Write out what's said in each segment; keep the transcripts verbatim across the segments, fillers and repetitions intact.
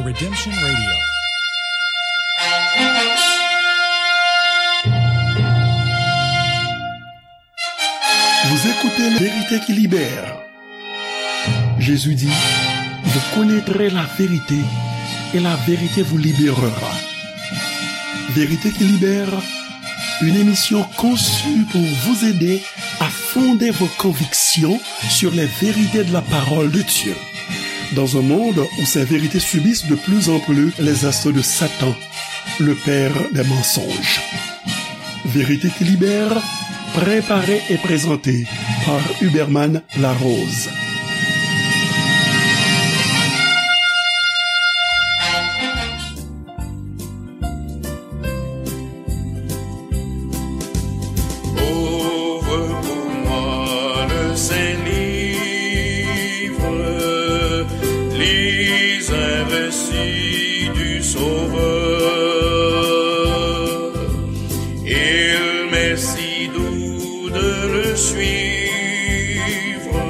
Redemption Radio. Vous écoutez la vérité qui libère. Jésus dit, vous connaîtrez la vérité et la vérité vous libérera. Vérité qui libère, une émission conçue pour vous aider à fonder vos convictions sur les vérités de la parole de Dieu. Dans un monde où ces vérités subissent de plus en plus les assauts de Satan, le père des mensonges. Vérité qui libère, préparée et présentée par Huberman Larose. Ouvre pour moi le saint livre, lis un récit du Sauveur. Il m'est si doux de le suivre,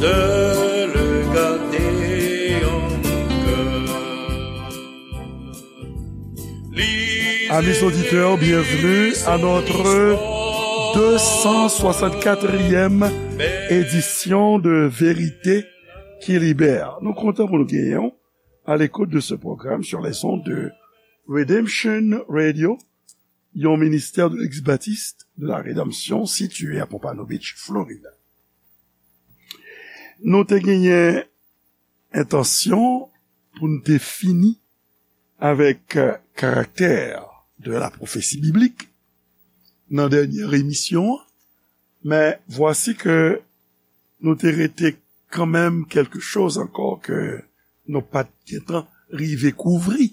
de le garder en mon cœur. Amis auditeurs, bienvenue à notre deux cent soixante-quatrième édition de Vérité qui Libère. Nou kontan pou nou genyen w à l'écoute de ce programme sur les ondes de Redemption Radio, yon ministère de l'Ex-Baptiste de la Rédemption situé à Pompano Beach, Florida. Nou te genyen entansyon pou n te fini avèk, euh, karaktè de la pwofesi biblik nan dènyè emisyon an, men vwasi ke nou te rete kanmenm kèlke choz ankò ke nou pa t gentan rive kouvri,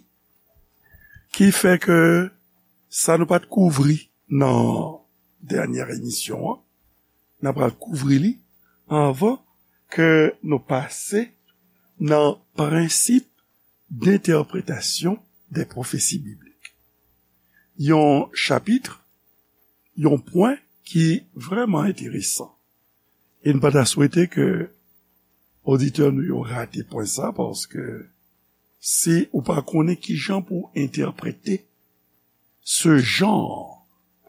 ki fè ke sa nou pa t kouvri nan dènyè emisyon an, n ap pral kouvri li anvan ke nou pase nan prensip d'entèpretasyon dè pwofesi biblik. Yon chapit, yon pwen ki vrèman enteresan. E n pa ta swete ke oditè nou yo rate pwen sa, paske si ou pa konnen kijan pou entèprete ce genre,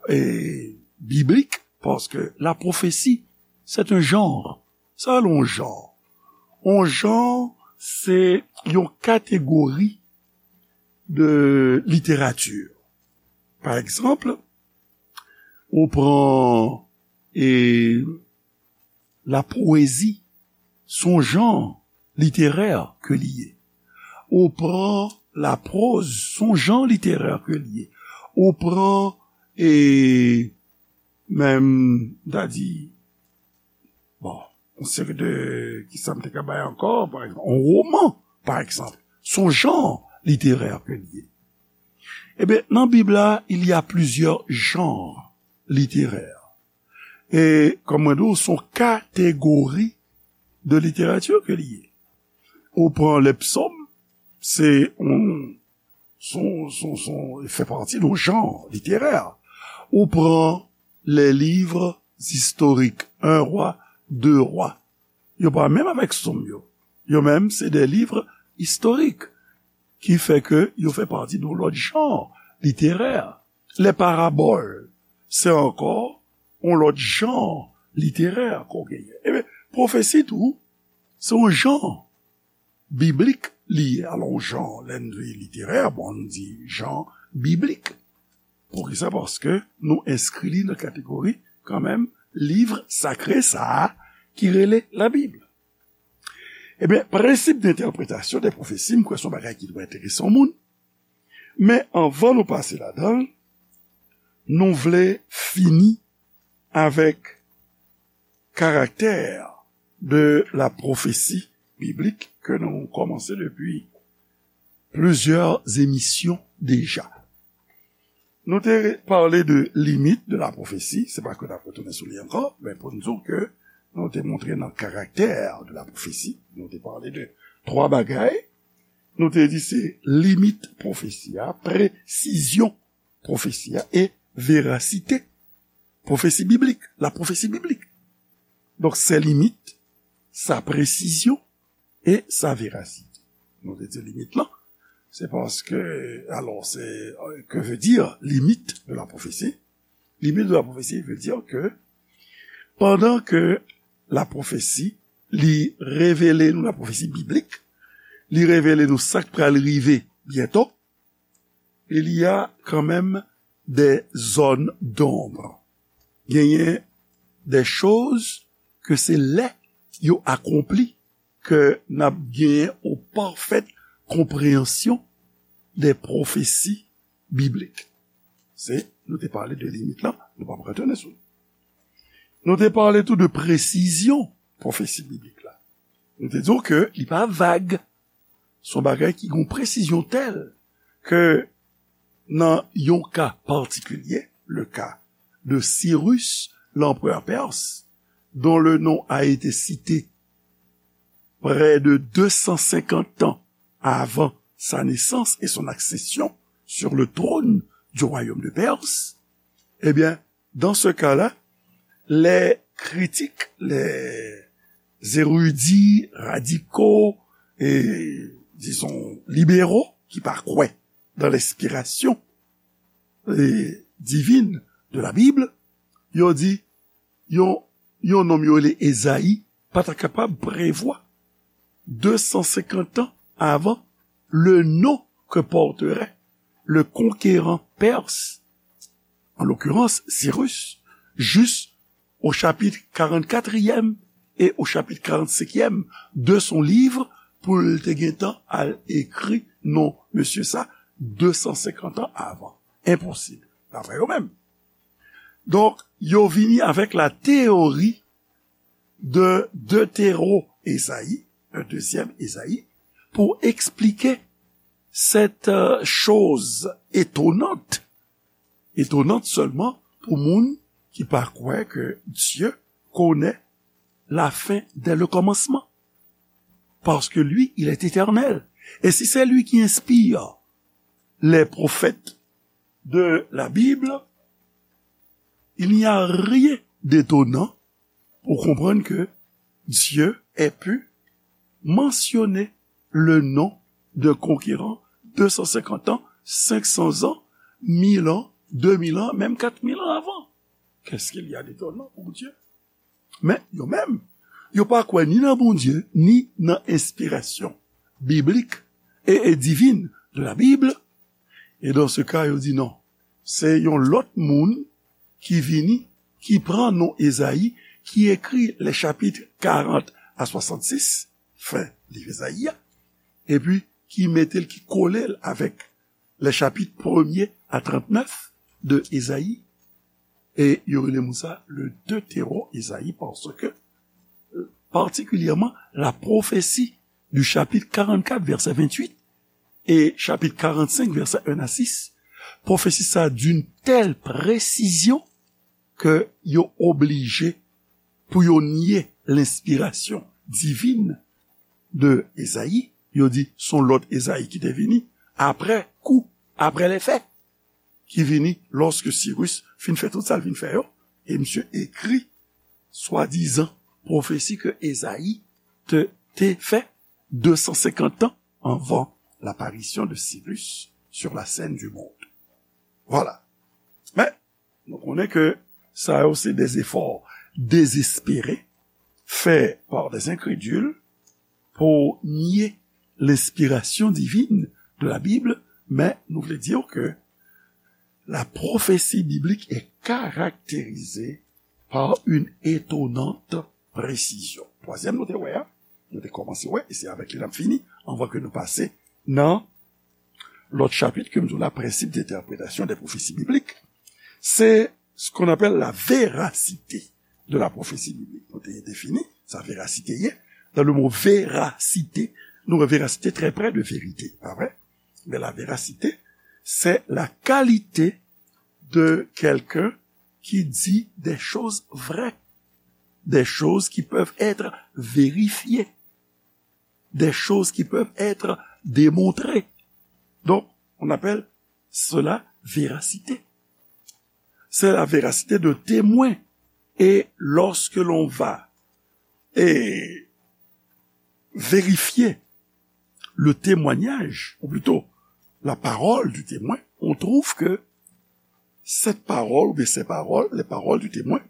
eh, biblique, parce que la prophétie, c'est un genre. Sa yon genre. Yon genre, se yon kategori de literati. Pa egzanp, ou pran, eh, la pwezi, se yon jan literè ke li ye. Ou pran la prose, se yon jan literè ke li ye. Ou pran, e, menm, m ta di, bon, yon seri de, kisa m te ka bay ankò, pa egzanp, yon woman, pa egzanp, se yon jan literè ke li ye. Ebyen, nan Bib la, il y a plusieurs genres littéraires. E, kòm mwen di w, se yon kategori de literati ke li ye. Ou pran le psaume, se yon, se yon, se yon, se yon, fè pati de yon jan literè. Ou pran les livres historiques, Un roi, Deux rois. Yo pa menm avèk sòm yo. Yo menm, se de liv istorik ki fè ke yo fè pati de yon lòt jan literè. Les paraboles, se ankò yon lòt jan literè ke w genyen. Ebyen, pwofesi tou, se yon jan biblik li ye. Alò, yon jan, lè n di literè, bon, n di jan biblik. Poukisa? Paske nou enskri li nan kategori, kanmenm, liv sakre sa a ki rele Labib. Ebyen, prensip d'entèpretasyon dè pwofesi, m kwè se yon bagay ki dwe enterese yon moun. Men anvan nou pase ladan l, nou vle fini avèk karaktè de la pwofesi biblik ke nou kòmanse depi plizyè emisyon deja. Nou te pale de limit de la pwofesi, se pa ke n ap retounen sou li ankò, men pou n di w ke nou te montre nan karaktè de la pwofesi, nou te pale de twa bagay, nou te di se limit pwofesi a, presizyon pwofesi a e verasite pwofesi biblik, la pwofesi biblik. Donk, ses limites, sa presizyon e sa verasite. Nou te di limit lan, se paske, alò, se, euh, que veut dire limite de la prophétie? Limite de la prophétie veut dire que pandan ke la pwofesi, li revele nou la pwofesi biblik, li revele nou sa k pral rive byento, il y a quand même des zones d'ombre. Genyen des choses que se lè yo akonpli ke n ap genyen yon pafèt konpreyansyon de pwofesi biblik. Se, nou te pale de limit lan, nou p ap retounen sou li. Nou te pale tou de presizyon pwofesi biblik la. Nou te di w ke li pa vag. Se yon bagay ki gen yon presizyon tèl ke nan yon ka patikilye, le cas de Cyrus, l'empereur perse, dont le nom a été cité près de deux cent cinquante ans avant sa naissance et son accession sur le trône du royaume de Perse, eh bien, dans ce cas-là, les critiques, les érudits radicaux et, disons, libéraux qui pa kwè dans l'inspiration eh, divine de la Bible, yo di, yon, yon nonm yo rele Ezayi pa ta kapab prevwa deux cent cinquante ans avant le nom que porterait le conquérant perse, en l'occurrence Cyrus, juste au chapitre quarante-quatrième et au chapitre quarante-cinquième de son livre pou l te gentan al ekri non mesye sa deux cent cinquante ans avant. Enposib, daprè yo menm. Donk, yo vini avèk la théorie de Deutéro-Esaïe, un deuxième Esaïe, pour expliquer cette euh, chose étonnante, étonnante seulement pour moun ki pa kwè que Dieu connaît la fin dès le commencement. Parce que lui, il est éternel. Et si c'est lui qui inspire les prophètes de la Bible, il n'y a rien d'étonnant pour comprendre que Dieu ait pu mentionner le nom d'un conquérant deux cent cinquante ans, cinq cents ans, mille ans, deux mille ans, même quatre mille ans avant. Qu'est-ce qu'il y a d'étonnant pour Dieu? Men yo menm, yo pa kwè ni nan Bondye, ni nan enspirasyon biblik e, e divin de la Bible. E dans ce cas, yo di non. Se yon lòt moun ki vini, ki pran non Ezayi, ki ekri les chapitres quarante à soixante-six, fen liv Ezayi a, epi ki mete l, ki kole l avèk les chapitres premier à trente-neuf de Ezayi, e yo rele moun sa le Deutéro-Esaïe, parce que, euh, particulièrement, la prophétie du chapitre quarante-quatre, verset vingt-huit, et chapitre quarante-cinq, verset un à six, pwofesi sa d'une telle précision que yo oblije pou yo nye lenspirasyon divin de Ezayi, yo di son lòt Ezayi ki te vini apre kou, apre lè fè, ki vini lòske Sirus fin fè tout sa l vin fè yo, e misye ekri swadizan pwofesi ke Ezayi te, te fè deux cent cinquante ans avant l'apparition de Cyrus sur la scène du monde. Voilà. Men, nou konnen ke sa yo se des efforts désespérés faits par des incrédules pour nier l'inspiration divine de la Bible, men nou vle di ke la prophétie biblique est caractérisée par une étonnante précision. Twazyèm nou te wè a, nou te kòmanse wè, e se avèk li n ap fini, anvan ke nou pase nan lòt chapit ke m di w la, principe d'interprétation des prophéties bibliques, c'est ce qu'on appelle la véracité de la prophétie biblique. Nou te defini sa verasite ye. Dans le mot véracité, nou wè véracité très près de vérité, pa vre? Mais la véracité, c'est la qualité de quelqu'un qui dit des choses vraies, des choses qui peuvent être vérifiées, des choses qui peuvent être démontrées. Donc, on appelle cela véracité. C'est la véracité de témoins. Et lorsque l'on va et vérifier le témoignage, ou plutôt la parole du témoin, on trouve que cette parole, ou bien ces paroles, les paroles du témoin,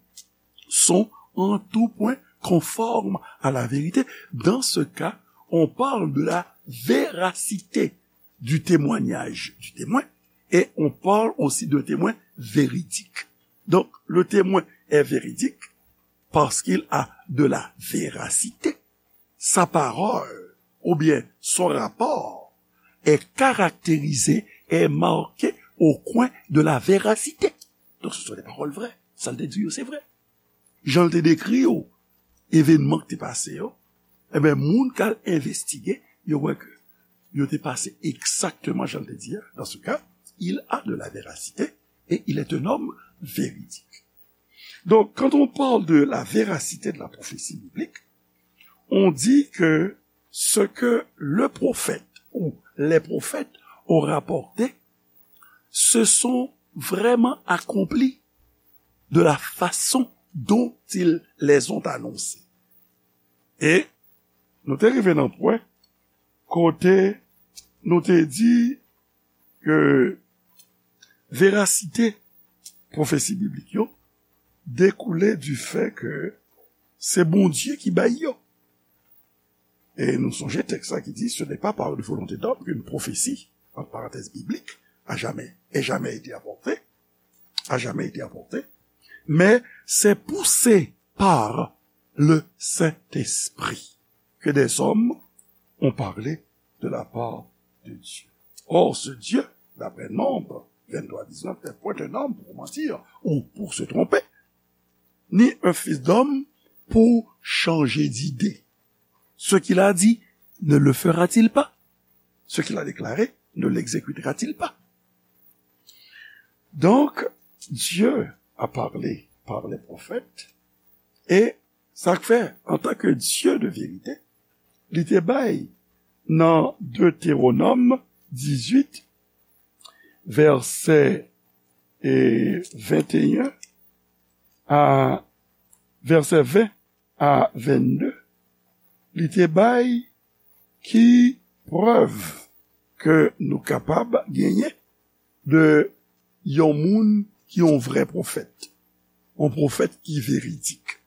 sont en tout point conformes à la vérité. Dans ce cas, on parle de la véracité du témoignage du témoin et on parle aussi d'un témoin véridique. Donc, le témoin est véridique parce qu'il a de la véracité. Sa parole ou bien son rapport est caractérisé, est marqué au coin de la véracité. Donc, ce sont des paroles vraies. Sa l te di yo, se vre. Jan l te dekri yo, evènman ki te pase yo, ebyen, moun k al envestige, yo wè ke yo te pase egzakteman jan l te di a. Dans ce cas, il a de la véracité et il est un homme véridique. Donc, quand on parle de la véracité de la prophétie biblique, on dit que ce que le prophète ou les prophètes ont rapporté se sont vraiment accomplis de la façon dont ils les ont annoncés. E nou te rive nan pwen kote nou te di ke verasite pwofesi biblik yo dekoule du fait que c'est Bondye ki bay yo. E nou sonje tèks la ki di, ce n'est pas par une volonté d'homme qu'une prophétie, entre parenthèses, biblique, a jamais, ait jamais été apportée, a jamais été apportée, mais c'est poussé par le Saint-Esprit que des hommes ont parlé de la part de Dieu. Or, ce Dieu, d'après Nombre vingt-trois dix-neuf, n'est point un homme pour mentir ou pour se tromper, ni un fils d'homme pour changer d'idée. Ce qu'il a dit, ne le fera-t-il pas? Ce qu'il a déclaré, ne l'exécutera-t-il pas? Donc, Dieu a parlé par les prophètes, e sa k fè, antanke Dye de verite, li te bay nan Deutéronome dix-huit, vèsè, e, vingt et un a, vèsè vingt a vennde, li te bay ki prèv ke nou kapab genyen de yon moun ki yon vrè pwofèt, yon pwofèt ki veridik,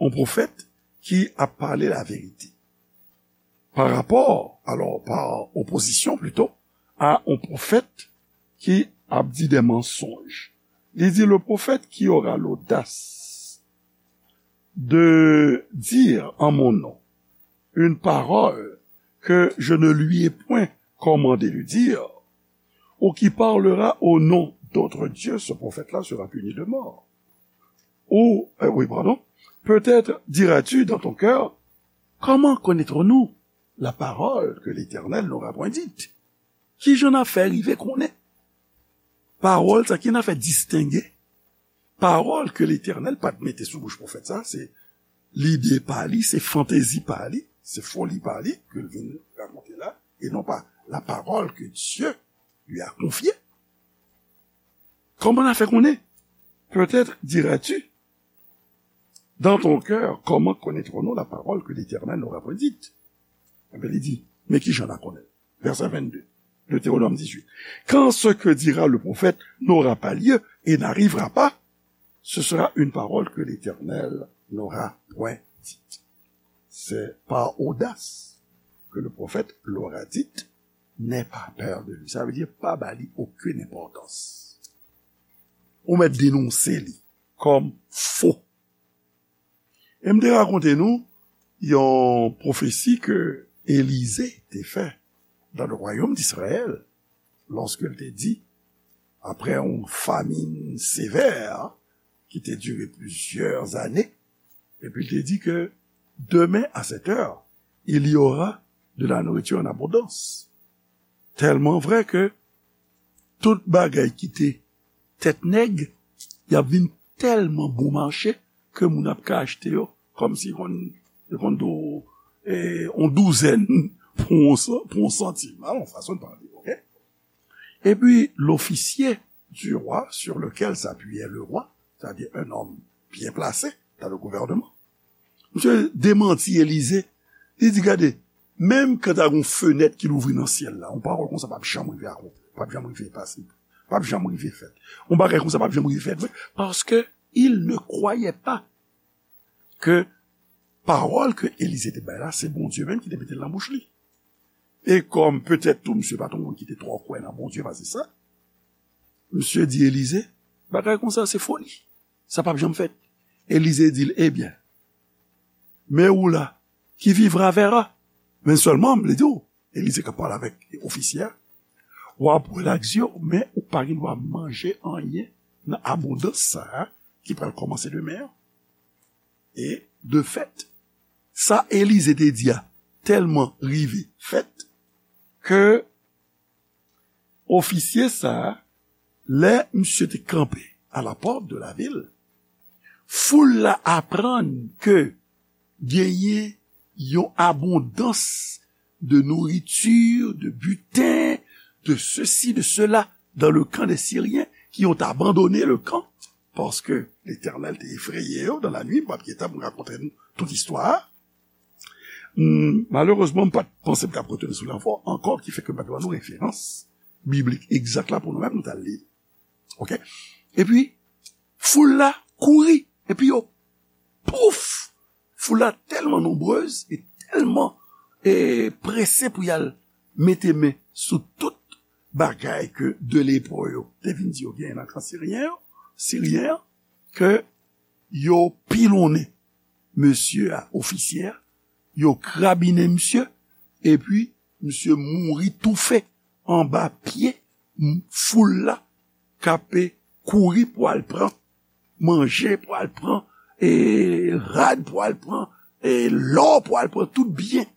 yon pwofèt ki ap pale laverite. Pa rapò, alò, pa opozisyon plito, a yon pwofèt ki ap di de mansonj. Li di, le prophète qui aura l'audace de dire en mon nom une parole que je ne lui ai point commandé de dire, ou qui parlera au nom d'autres dieux, ce prophète-là sera puni de mort. Ou, euh, oui, pardon, peut-être diras-tu dans ton cœur, comment connaîtrons-nous la parole que l'Éternel n'aura point dite? Kijan n a fè rive konnen pawòl sa, ki n a fè distenge pawòl ke Letènèl pa t mete sou bouch pwofèt sa, se lide pa li, se fantezi pa li, se foli pa li ke l vin rakonte la, e non pa la parole que Dieu lui a confiée. Comment on a fait qu'on est? Peut-être diras-tu dans ton cœur, comment connaîtrons-nous la parole que l'Éternel n'aura point dite? Ebyen, li di, men ki jan n a konnen? Verset vingt-deux, Deutéronome dix-huit. Quand ce que dira le prophète n'aura pas lieu et n'arrivera pas, ce sera une parole que l'Éternel n'aura point dite. C'est par audace que le prophète l'aura dite, n'aie pas peur de lui. Sa vle di, pa ba li okenn enpòtans. Ou mèt denonse li kòm fo. E m te rakonte nou yon pwofesi ke Elize te fè dans le royaume d'Israël, lorsque l te di, après une famine sévère qui te durer plusieurs années, epi l te di ke demain à cette heure, il y aura de la nourriture en abondance. Tèlman vrè ke tout bagay ki te tèt nèg, y ap vin tèlman bon mache ke moun ap ka achte yo kòmsi konn, yo konn do, e, on douzèn pou on san-, pou on santim. A, yon fason de pale, oke? Et puis, l'officier du roi sur lequel s'appuyait le roi, c'est-à-dire un homme bien placé dans le gouvernement, misye demanti Elize. Li di, gade, Menm kan ta gen yon fenèt ki louvri nan syèl la, yon pawòl konsa p ap janm rive akonpli, p ap janm rive pase, p ap janm rive fèt. Yon bagay konsa p ap janm rive fèt vre, paske il ne croyait pas ke pawòl ke Elize te bay la, se Bondye menm ki te mete l nan bouch li. E kòm petèt tou misye pa t yon moun ki te twò kwè nan Bondye pase sa, misye di Elize, bagay konsa se foli. Sa p ap janm fèt. Elize di l, ebyen, mais où là, qui vivra verra. Men sèlman, m vle di w, Elize k ap pale avèk ofisye a, w ap bwè lak zye w, men ou pa gen dwa manje anyen nan abondans sa a ki pral kòmanse demen an. E de fèt, sa Elize te di a tèlman rive fèt ke ofisye sa a, lè misye te kanpe à la porte de la ville, foul la aprann ke genyen yon abondans de nourriture, de butin, de ceci, de cela, dans le camp des Syriens, ki ont abandonné le camp, paske Letènèl te efreye yo dans la nuit, m p ap gentan pou rakonte nou tout istwa a. Hmm, malerezman, m pa t panse m t ap retounen sou lanfò ankò, ki fè ke m pa t ba nou referans biblik egzak la pou nou menm, nou t al li. Oke? Epi, foul la kouri, epi yo, pouf! Foul la tèlman nonbrez e tèlman e prese pou y al mete men sou tout bagay ke de lepo yo te vin di yo genyen nan kan siryen yo, siryen an, ke yo pilonnen mesye a, ofisye a, yo krabinen misye, epi misye mouri toufe anba pye m-, foul la k ape kouri pou al pran manje, pou al pran e rad, pou al pran e lò, pou al pran tout byen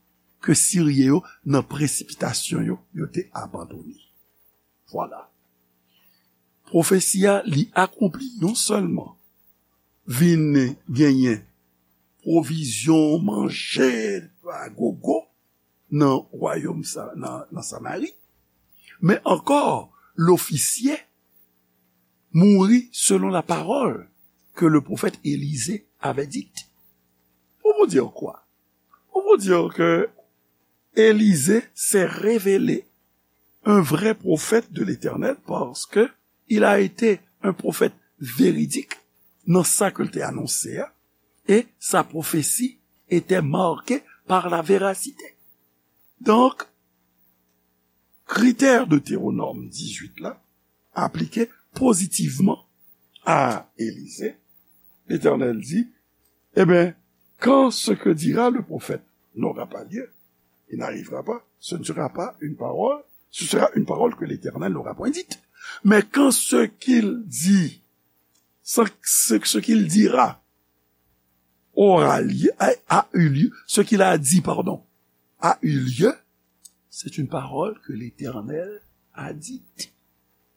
ke Siryen yo nan presipitasyon yo, yo te abandone. Vwala. Pwofesi a, li akonpli non sèlman vin genyen pwovizyon, manje, a gogo nan wayòm sa, nan, nan Samari, men ankò, lofisye mouri selon la parole que le prophète Élisée avait dite. Pour vous dire quoi? Pour vous dire que Élisée s'est révélé un vrai prophète de l'Éternel parce que il a été un prophète véridique dans sa ke l te anonse a, et sa prophétie était marquée par la véracité. Donk, kritè Deutéronome dix-huit la aplike pozitivman a Elize. Letènèl di, eh bien, quand ce que dira le prophète n'aura pas lieu, il n'arrivera pas, ce ne sera pas une parole, ce sera une parole que l'Éternel n'aura point dite. Mais quand ce qu'il dit, ce, ce, ce qu'il dira aura lieu, a, a eu lieu, ce qu'il a dit, pardon, a eu lieu, c'est une parole que l'Éternel a dite.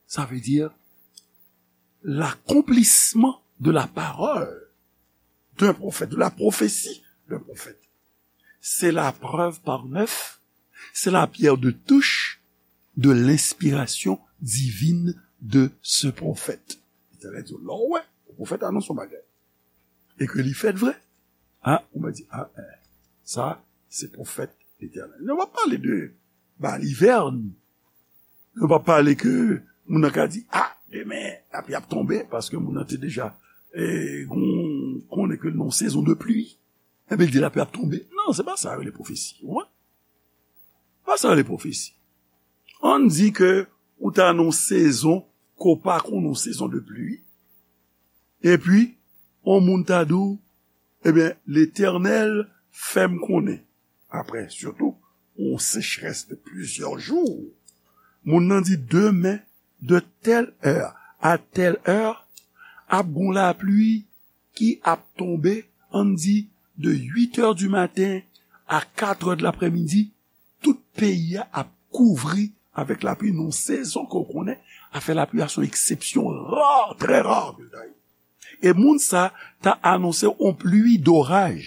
Ça veut dire l'accomplissement de la parole d'un prophète, de la prophétie d'un prophète. C'est la preuve par neuf, c'est la pierre de touche de l'inspiration divine de ce prophète. Letènèl di, lè w wè, pwofèt anonse yon bagay, e ke li fèt vre, a, ou mwen di, a, eh, sa, se pwofèt Letènèl. Nou pa pale de balivèn. Nou pa pale ke moun nan ka di, a, demen, lapli ap tonbe, paske moun nan te deja, eh, gon-, konnen ke nan yon sezon de pli. Epi l di lapli ap tonbe. Non, se pa sa yo rele pwofesi. Ou wè? Pa sa yo rele pwofesi. Ann di ke ou ta nan yon sezon ke w pa konnen, yon sezon de pli. Epi, yon moun ta di w, ebyen, Letènèl fè m konnen. Apre, sitou, yon sechrès de plizyè jou. Moun nan di, demen, de telle heure à telle heure, ap gon lapli ki ap tonbe, ann di, de huit heures du matin à quatre heures de l'après-midi, tout peyi a ap kouvri avèk lapli nan yon sezon ke w konnen, afè lapli a se yon eksepsyon ra, trè ra ke l ta ye. E moun sa ta anonse yon pli doraj.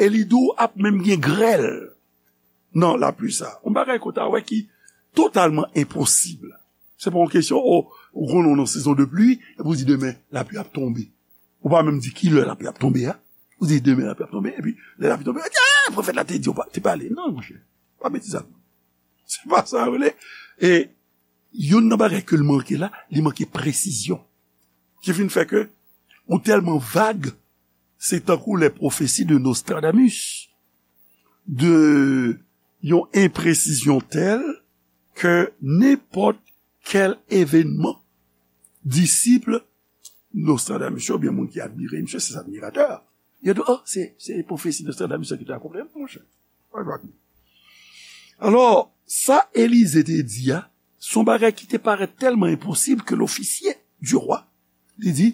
E li di w ap menm gen grèl nan lapli sa. Yon bagay ke w ta wè ki totalman enposib. Se pa yon kesyon, o, ou konnen w nan sezon de pli, epi w di demen lapli ap tonbe. Ou pa menm di kilè lapli ap tonbe a. Ou di demen lapli ap tonbe, epi lè lapli tonbe, Sa pwofèt la te di w pa, te pale. Non, monchè. Pa betiz sa. Se pa sa yo rele. E youn nan bagay ke l manke la, li manke presizyon. Ki vin fè ke ou tèlman vag, se tankou les prophéties de Nostradamus, de yon enpresizyon tèl ke nenpòt kèl evènman, disip Nostradamus yo, oubyen moun ki admire misye, se admiratè. Yo di, oh, se, se pwofesi Nostradamus ki te akonpli, monchè. Alò, sa Elize te di a, se yon bagay ki te parèt tèlman enposib ke lofisye di wa, li di,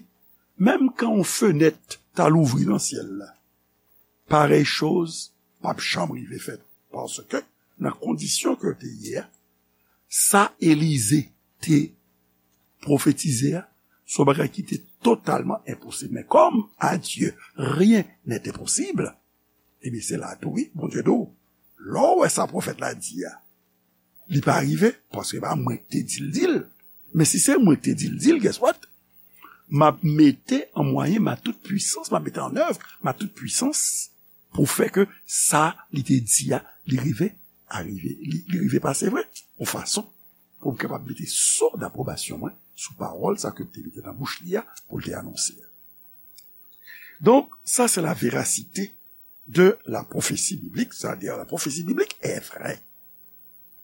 menm kan yon fenèt ta louvri nan syèl la, parèy choz p ap janm rive fèt. Paske, nan kondisyon ke yo te ye a, sa Elize te pwofetize a, se yon bagay ki te totalman enposib. Men kòm à Dieu rien n'est impossible, ebyen se la tou wi, Bondye di w, lè w wè sa pwofèt la di a, li pa rive, paske se pa mwen ki te di l di l. Men si se mwen ki te di l di l, guess what? M ap mete an mwayen ma tout pwisans, m ap mete an èv ma tout pwisans pou fè ke sa li te di a, li rive arive, li, li rive pase vre, yon fason pou m kapab mete so dapwobasyon mwen sou pawòl sa ke m te mete nan bouch li a pou l te anonse a. Donk, sa se la verasite de la pwofesi biblik, sa vle di la pwofesi biblik e vrè.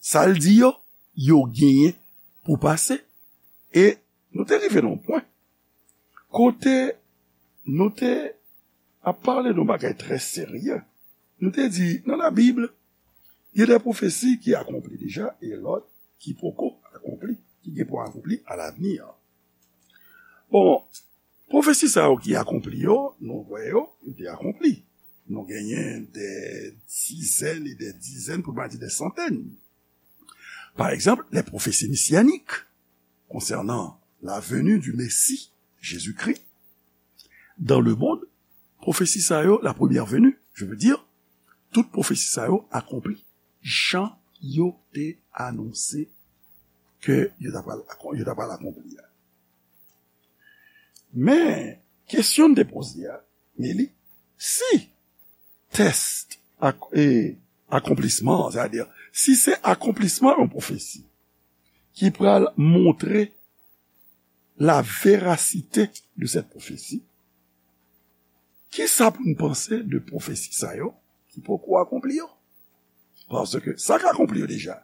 Sa l di yo, yo genyen pou pase. E nou te rive nan yon pwen kote nou te ap pale de yon bagay trè serye. Nou te di, nan la Bib, il y a des prophéties qui accompli déjà et l'autre qui poko akonpli, ki gen pou akonpli à l'avenir. Bon, pwofesi sa yo ki akonpli yo, nou wè yo, yo te akonpli. Nou genyen des dizaines et des dizaines, pou pa di des centaines. Par exemple, les prophéties messianiques concernant la venue du Messie, Jésus-Christ, dans le monde, pwofesi sa yo, la première venue, je veux dire, tout pwofesi sa yo akonpli jan yo te anonse ke yo ta pral, yo ta pral akonpli a. Men, kesyon m te poze a, men li, si tès ak, e, akonplisman, sètadi, si se akonplisman yon pwofesi ki pral montre la verasite de cette prophétie, kisa pou n panse de pwofesi sa yo ki poko akonpli yo? Paske sa k akonpli yo deja,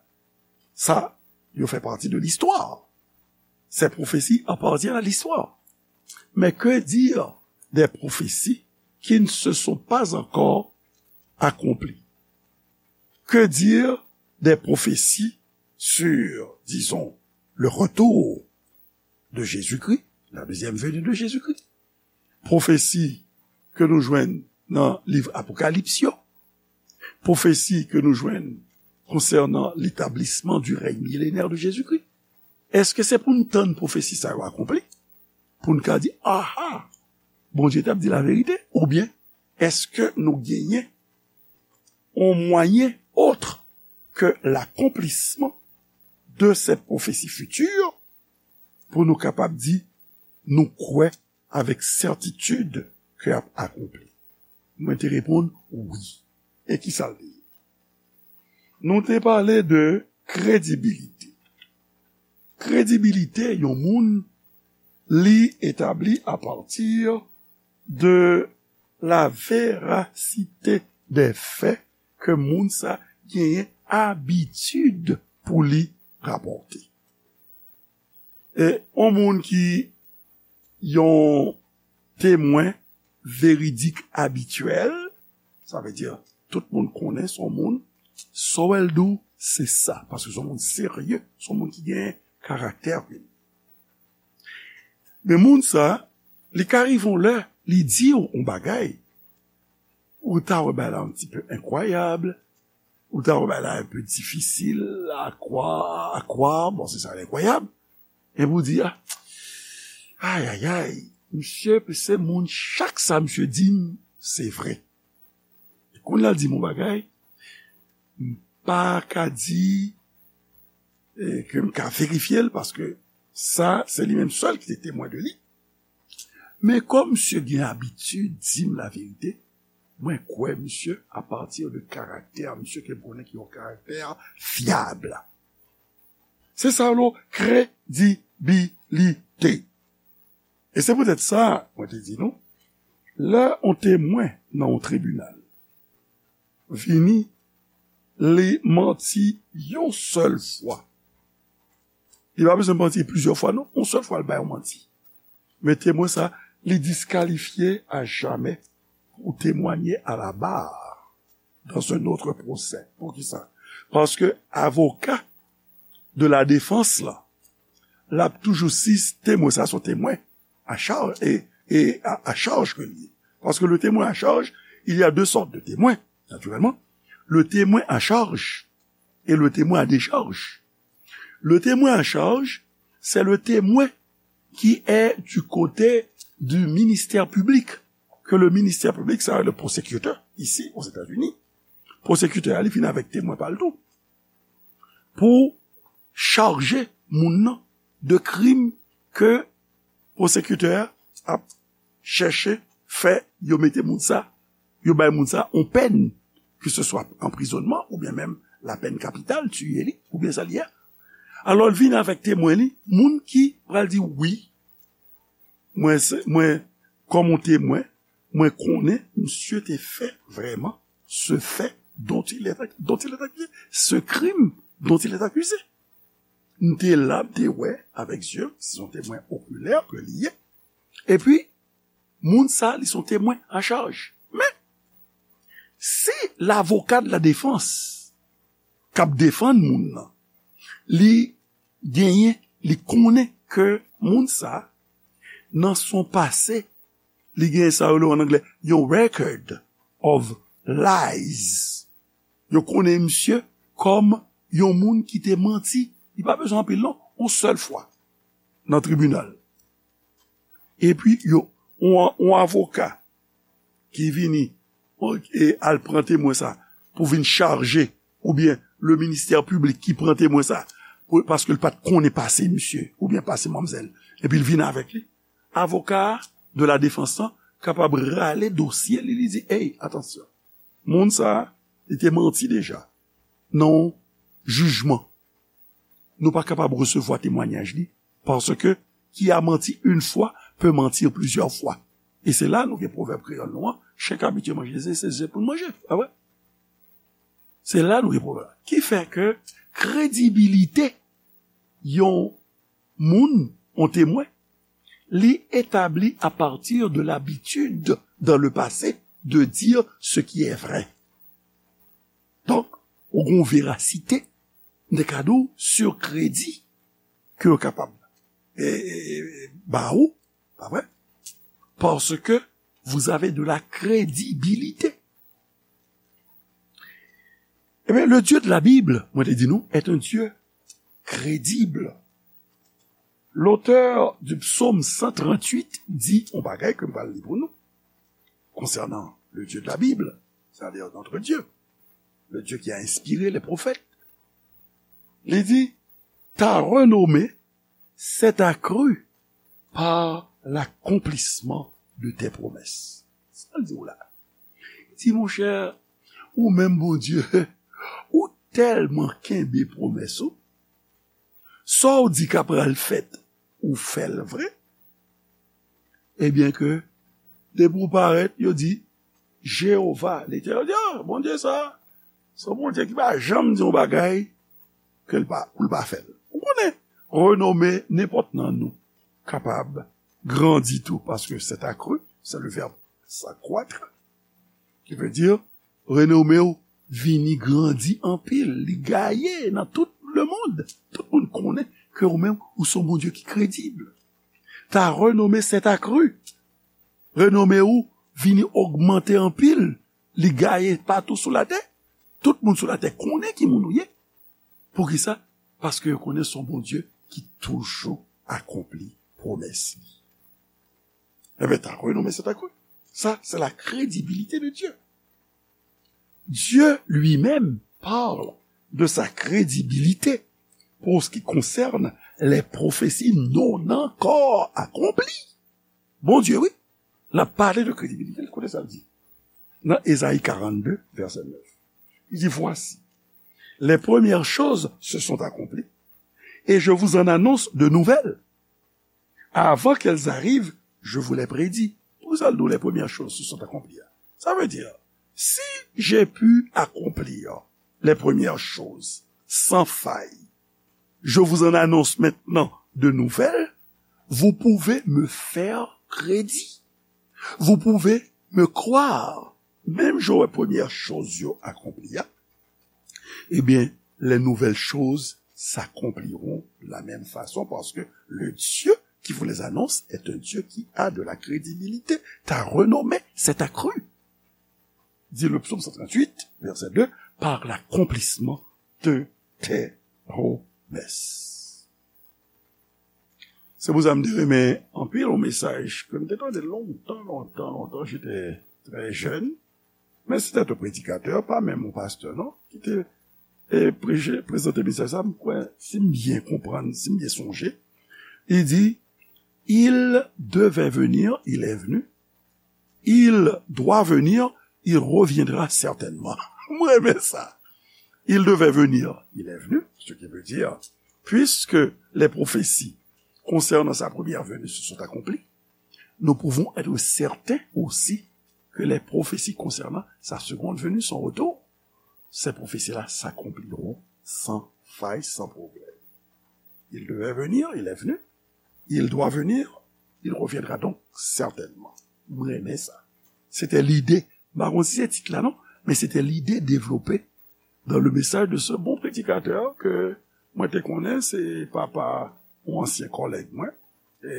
sa yo fè pati de listwa. Ces prophéties appartiennent à l'histoire. Mais que dire des prophéties qui ne se sont pas encore accomplies? Que dire des prophéties sur, disons, le retour de Jésus-Christ, la deuxième venue de Jésus-Christ? Pwofesi ke nou jwenn nan liv Apokalips yo, pwofesi ke nou jwenn konsènan l'établissement du règne millénaire de Jésus-Christ. Èske se pou n tann pwofesi sa yo akonpli pou n ka di, aha, Bondye t ap di laverite? Oubyen èske nou genyen yon mwayen autre que l'accomplissement de cette prophétie future pou nou kapab di nou kwè avèk sètitid ke ap akonpli? Mwen te reponn wi. E ki sa l te ye? Nou te pale de kredibilite. Kredibilite yon moun, li etabli apati de la verasite dè fè ke moun sa genyen abitid pou li rapòte. E yon moun ki yon temwen veridik abityèl, sa vle di tout moun konnen se yon moun, sa w wè l di w, se sa, paske se yon moun serye, se yon moun ki gen karaktè. Men moun sa, li ka rive yon lè, li di w yon bagay, ou ta wè bagay la yon ti pe enkwayab, ou ta wè bagay la un peu difficile à croire, à croire, bon, se sa, l enkwayab. Epi ou di, ah, ay, ay, ay, misye, se moun, chak sa misye di m, se vre. E kounye a l di m yon bagay, m pa ka di, e, ke m ka verifye l, paske sa, se li menm sèl ki te temwen de li. Men kòm misye gen abitid di m laverite, Mwen kwè misye apati de karaktè misye ke m konnen ki yon karaktè fyab. Se sa yo rele kredibilite. E se poutèt sa, mwen te di nou, lè yon temwen nan yon tribinal vini, li manti yon sèl fwa. Li pa bezwen manti plizyè fwa, non. Yon sèl fwa, li bay yon manti. Men temwen sa, li diskalifye a jamè pou temwanye a la bar dans un autre procès. Poukisa? Paske avoka de la defans la, l ap toujou si temwen sa se yon temwen a chaj e, e a, a chaj ke li ye. Paske le témoin à charge, il y a deux sortes de témoins, naturellement. Le témoin à charge et le témoin à décharge. Le témoin à charge, c'est le témoin qui est du côté du ministère public, que le ministère public, c'est le prosécuteur, ici aux États-Unis. Prosécuteur, li vin avèk temwen pa l tou. Pou chaje moun nan de krim ke pwosekitè a ap chèche fè yo mete moun sa, yo bay moun sa yon pèn, ke se swa anprizonnman oubyen menm la pèn kapital, tiye li, oubyen sa li ye. Alò, l vin avèk temwen li, moun ki pral di, wi, mwen, se, mwen, kòm yon temwen, mwen konnen misye te fè vrèman ce fait dont il est, dont il est accusé, ce crime dont il est accusé. M te la, m te wè avèk zye m, se yon temwen okilè ke li ye. Epi, moun sa, li se yon temwen a chaj. Men, si lavoka de la defans k ap defann moun nan, li genyen, li konnen ke moun sa, nan son pase, li genyen sa yo rele an anglè yon record of lies. Yo konnen misye kòm yon moun ki te manti. Li pa bezwen anpil, non. Yon sèl fwa nan tribinal. Epi, yo, yon, yon avoka ki vini, e al pran temwen sa pou vin chaje, oubyen le ministè piblik ki pran temwen sa, pou, paske l pa t konnen pase misye, oubyen pase manmzèl, epi l vin avèk li. Avoka de la defans lan kapab rale dosye li, li di, ey, atansyon, moun sa a, li te manti deja nan yon jijman. Nou pa kapab resevwa temwanyaj li, paske qui a menti une fois peut mentir plusieurs fois. E se la nou gen pwovèb kreyòl nou an, chen k abitye manje ze, se ze pou l manje, pa vre? Se la nou gen pwovèb. Ki fè ke kredibilite yon moun, yon temwen, li etabli à partir de l'habitude dans le passé de dire ce qui est vrai. Donk, ou gen yon verasite, m te ka di w, sur kredi ke yo kapab, e, e, e, ba ou, pa vre? Parce que vous avez de la crédibilité. Eh bien, le Dieu de la Bible, mwen te di nou, est un Dieu crédible. L'auteur du psaume cent trente-huit dit yon bagay ke m pral li pou nou, concernant le Dieu de la Bible, c'est-à-dire notre Dieu, le Dieu qui a inspiré les prophètes. Li di, ta renommée s'est accrue par l'accomplissement de tes promesses. Sa l di w la? Li di, monchè, ou menm Bondye, ou tèlman kenbe pwomès ou, sa w di k ap pral fèt, ou fè l vre. Ebyen ke, depi w parèt, yo di, Jewova, Letènèl, yo di, ah, Bondye sa, se yon Bondye ki pa janm di yon bagay ke l pa, pou l pa fè l. Ou konnen, renome nenpòt nan nou kapab grandi tou, paske c'est accru, c'est le verbe s'accroître, qui veut dire renome w vini grandi anpil, li gaye nan tout lemonn. Tout moun konnen ke ou menm, ou se yon Bondye ki kredib. Ta renome s'est accru. Renome w vini ogmante anpil, li gaye patou sou latè. Tout moun sou latè konnen ki moun ou ye. Poukisa? Paske yo konnen se yon Bondye ki toujou akonpli pwomès li. Ebyen, ta renome s'est accru. Ça, c'est la crédibilité de Dieu. Dieu lui-même parle de sa crédibilité pour ce qui concerne les prophéties non encore accomplies. Bondye, wi, l ap pale de kredibilite l. Koute sa l di. nan Ezayi karannde, vèsè nèf. Li di, voici, les premières choses se sont accomplies, et je vous en annonce de nouvelles. Avant qu'elles arrivent, je vous les prédis. Poukisa l di w les premières choses se sont accomplies? Ça veut dire, si j'ai pu accomplir les premières choses sans faille, je vous en annonce maintenant de nouvelles, vous pouvez me faire crédit. Vous pouvez me croire. Menm jan w wè premyè choz yo akonpli a, ebyen, les nouvelles choses s'accompliront de la même façon, parce que le Dieu qui vous les annonce est un Dieu qui a de la crédibilité. Ta renommée s'est accrue, dit le psaume cent trente-huit, verset deux, par l'accomplissement de tes promesses. Se pou sa m te renmen anpil yon mesaj ke m te tande lontan, lontan, lontan, j'étais très jeune. Men se te yon predikatè, pa menm yon pastè, non, ki te e, preche, prezante mesaj sa, m kwè, si m byen konprann, si m byen sonje, li di, il devait venir, il est venu. Il doit venir, il reviendra certainement. M renmen sa. Il devait venir, il est venu, ce qui veut dire, puisque les prophéties concernant sa première venue se sont accomplies, nous pouvons être certains aussi que les prophéties concernant sa seconde venue, son retour, ces prophéties-là s'accompliront sans faille, sans problème. Il devait venir, il est venu. Il doit venir, il reviendra donc certainement. M renmen sa. Se te lide, m pa konn si se tit la non, men se te lide devlope dans le message de ce bon prédicateur ke mwen te konnen, se papa yon ansyen kòlèg mwen. E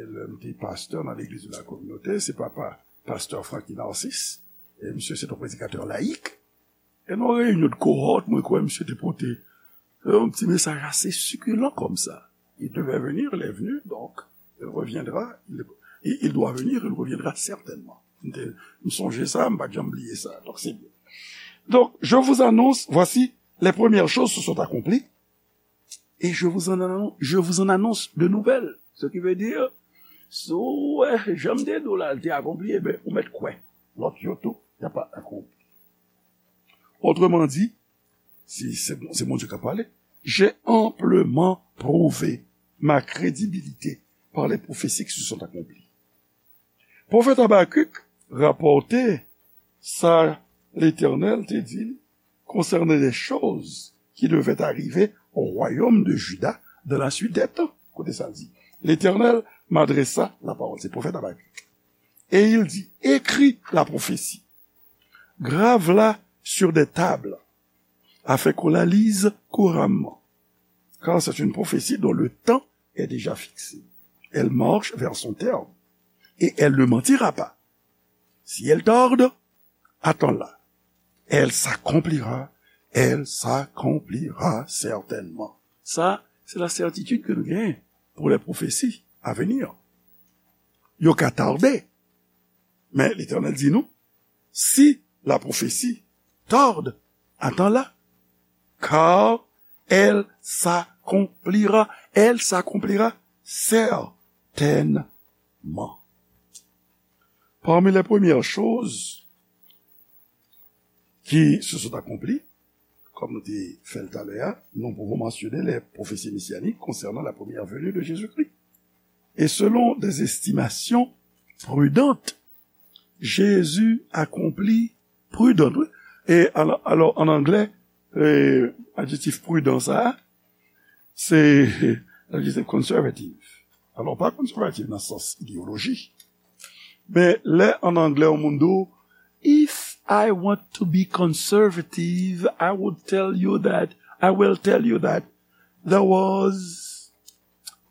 lè m te pastè nan legliz de la kominote, se papa pastè Francky Narcisse. E misye se yon predikatè layik. E nan yon reyinyon de kohòt, mwen kwè misye te pote yon ti mesaj ase sikilan kòmsa. Il devait venir, il est venu, donc il reviendra, il, il doit venir, il reviendra certainement. M te, m sonje sa, m pa t janm bliye sa. Donk, se byen. Donc, je vous annonce, voici, les premières choses se sont accomplies, et je vous en annon-, je vous en annonce de nouvelles. Ce qui veut dire, si w wè jan m te di w la, l te akonpli, ebyen, ou mèt kwè. Lòt yo tou, y a pa akonpli. Autrement dit, si se, se Bondye k ap pale, j'ai amplement prouvé ma crédibilité par les prophéties qui se sont accomplies. Pwofèt Abakik rapòte sa Letènèl te di l konsènan de choz ki devait arriver au royaume de Juda dans la suite des temps. Koute sa l di. L'Éternel m'adressa la parole. Se pwofèt Abakik. Et il dit, écris la prophétie, grave-la sur des tables, afin qu'on la lise couramment. Car c'est une prophétie dont le temps est déjà fixé. Elle marche vers son terme, et elle ne mentira pas. Si elle tarde, attends-la. Elle s'accomplira, elle s'accomplira certainement. Sa, se la sètitid ke nou genyen pou lè pwofesi a vini. Yo ka tade, men Letènèl di nou, si la prophétie tarde, attends-la, car elle s'accomplira, elle s'accomplira certainement. Parmi les premières choses qui se sont accomplies, comme nous dit Feltalea, nous pouvons mentionner les prophéties messianiques concernant la première venue de Jésus-Christ. Et selon des estimations prudentes, Jésus accomplit prudent, wi. E alò, alò, an anglè, e, adjektif prudent sa, se adjektif conservative. Alò, pa conservative nan sans idéologie. Men lè an anglè yon moun di w, if I want to be conservative, I would tell you that, I will tell you that there was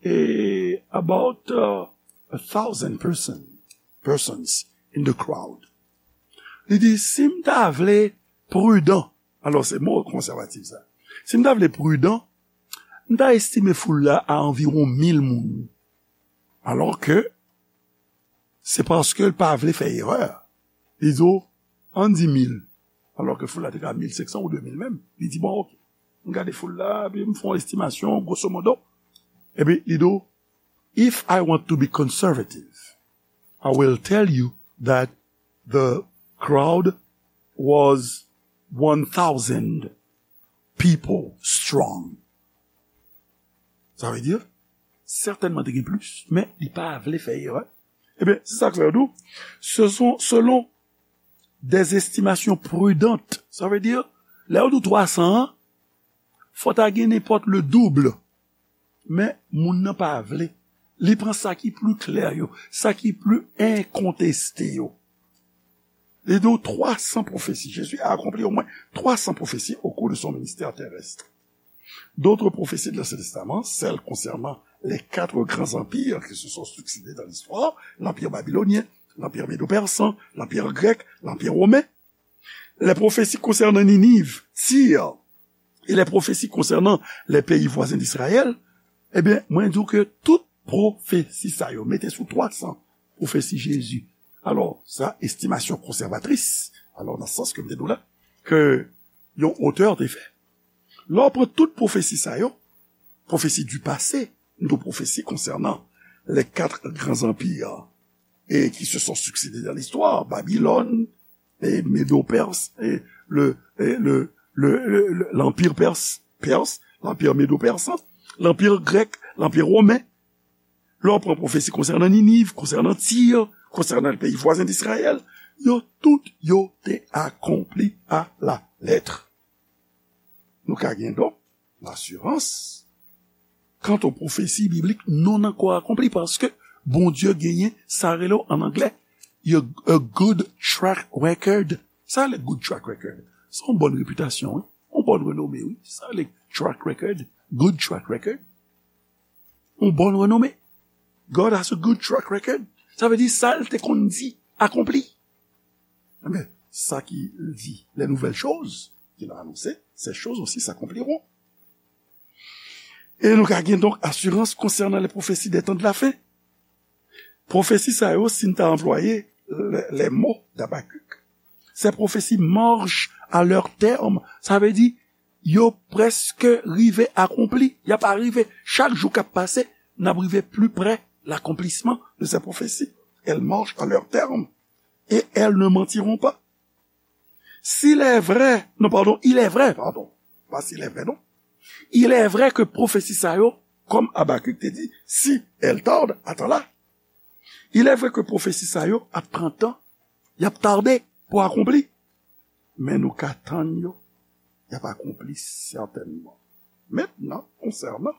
a, about uh, a thousand person, persons in the crowd. Li di, si m ta vle pridan, alò se mo konsèvatif sa, si m ta vle pridan, m ta estime foul la a anviwon mil moun. Alò ke se paske l pa vle fè erè. Li di w, ann di mil. Alò ke foul la te ka mil senk san ou de mil menm. Li di, bon, oke. M gade foul la, epi m fè yon estimasyon, grosso modo. Epi li di w, if I want to be conservative, I will tell you that the crowd was one thousand people strong. Sa vle di, sètènman te gen plis, men li pa vle fè erè. Ebyen, se sa k fè yo di w, ce sont, selon des estimations prudentes. Sa vle di, lè yo di w twa san an, fò ta gen nenpòt le double. Men, moun nan pa vle. Li pran sa ki pli klè yo, sa ki pli enkonteste yo. Li di w twa san pwofesi. Jésus a accompli au moins trois cents prophéties au cours de son ministère terrestre. D'autres prophéties de l'Ancien Testament, celles concernant les quatre grands empires qui se sont succédé dans l'histoire, l'empire babylonien, l'empire médo-persan, l'empire grec, l'empire romain, les prophéties concernant Ninive, Tyr, et les prophéties concernant les pays voisins d'Israël, ebyen, mwen di w ke tout pwofesi sa yo, mete sou twa san pwofesi Jezi. Alò, sa, estimasyon konsèvatris, alò, nan sans ke m te di w la, ke yon otè te fè. Lè w pran tout pwofesi sa yo, pwofesi du passé, nou pwofesi konsènan les quatre grands empires et qui se sont succédés dans l'histoire, Babylone, et Médo-Perse, et le, et le, le, le, le- l'empire perse, perse, l'empire médo-persan, l'empire grec, l'empire romain. Lè w pran pwofesi konsènan Niniv, konsènan Tir, konsènan peyi vwazen d Izrayèl, yo tout yo te akonpli a la lèt. Nou ka gen donk lasirans kant o pwofesi biblik non ankò akonpli, paske Bondye genyen sa rele w an anglè, a good track record. Sa rele good track record? Se yon bòn repitasyon, wi. Yon bòn renome, wi. Sa rele track record, good track record. Yon bòn renome. God has a good track record. Sa vle di sa l te konn di akonpli. Ebyen, sa ki di, les nouvelles choses qu'il a annoncées, ces choses aussi s'accompliront. E nou ka gen donk asirans konsènan les prophéties des temps de la fin. Pwofesi sa yo, si n ta anplwaye les, les mots d'Habacuc, ces prophéties marchent à leur terme. Sa vle di, yo prèske rive akonpli. Y ap rive. Chak jou k ap pase, n ap rive pli pre l'accomplissement de ces prophéties. Elles marchent à leur terme et elles ne mentiront pas. S'il est vrai, non, pardon, il est vrai, pardon. Pas s'il est vrai, non. Il est vrai que pwofesi sa yo, kòm Abakik te di, si elle tarde, attends-la. Il est vrai que pwofesi sa yo ap pran tan, y ap tade pou akonpli. Men nou ka tann yo, y ap akonpli sètènman. Maintenant, concernant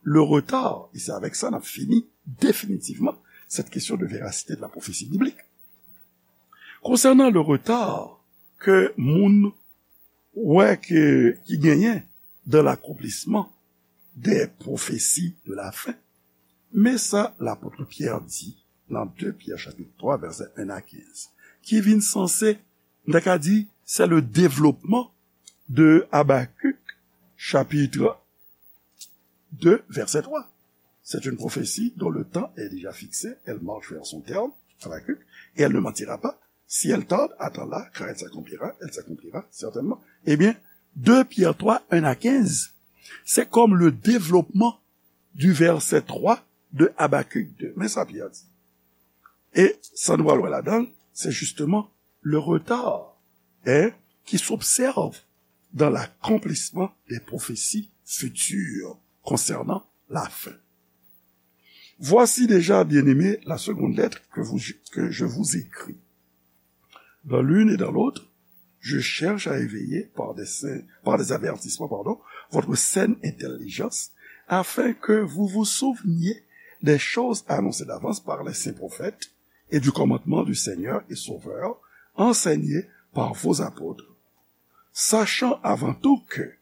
le retard, et c'est avec ça n ap fini définitivement cette question de véracité de la prophétie biblique. Concernant le retard ke moun wè ke, ki genyen dans l'accomplissement des prophéties de la fin, men sa lapot Pyè di nan de Pyè chapit twa vèsè en a kenz, ki vin sanse, n ta ka di, c'est le développement de Habacuc chapitre deux, verset trois. C'est une prophétie dont le temps est déjà fixé, elle marche vers son terme, Habacuc, et elle ne mentira pas. Si elle tarde, attends-la, car elle s'accomplira, elle s'accomplira certainement. Ebyen, de Pyè twa, en a kenz, se kòm le développement du verset trois de Habacuc deux. Men sa Pyè di. E sa nou pral wè ladan l, se justement le retard, hein, qui s'observe dans l'accomplissement des prophéties futures concernant la fin. Voici déjà, bien-aimés, la seconde lettre que vous, que je vous écris. Dans l'une et dans l'autre, je cherche à éveiller par des, saints- par des avertissements, pardon, votre saine intelligence, afin que vous vous souveniez des choses annoncées d'avance par les saints prophètes et du commandement du Seigneur et Sauveur, enseigné par vos apôtres, sachant avant tout que,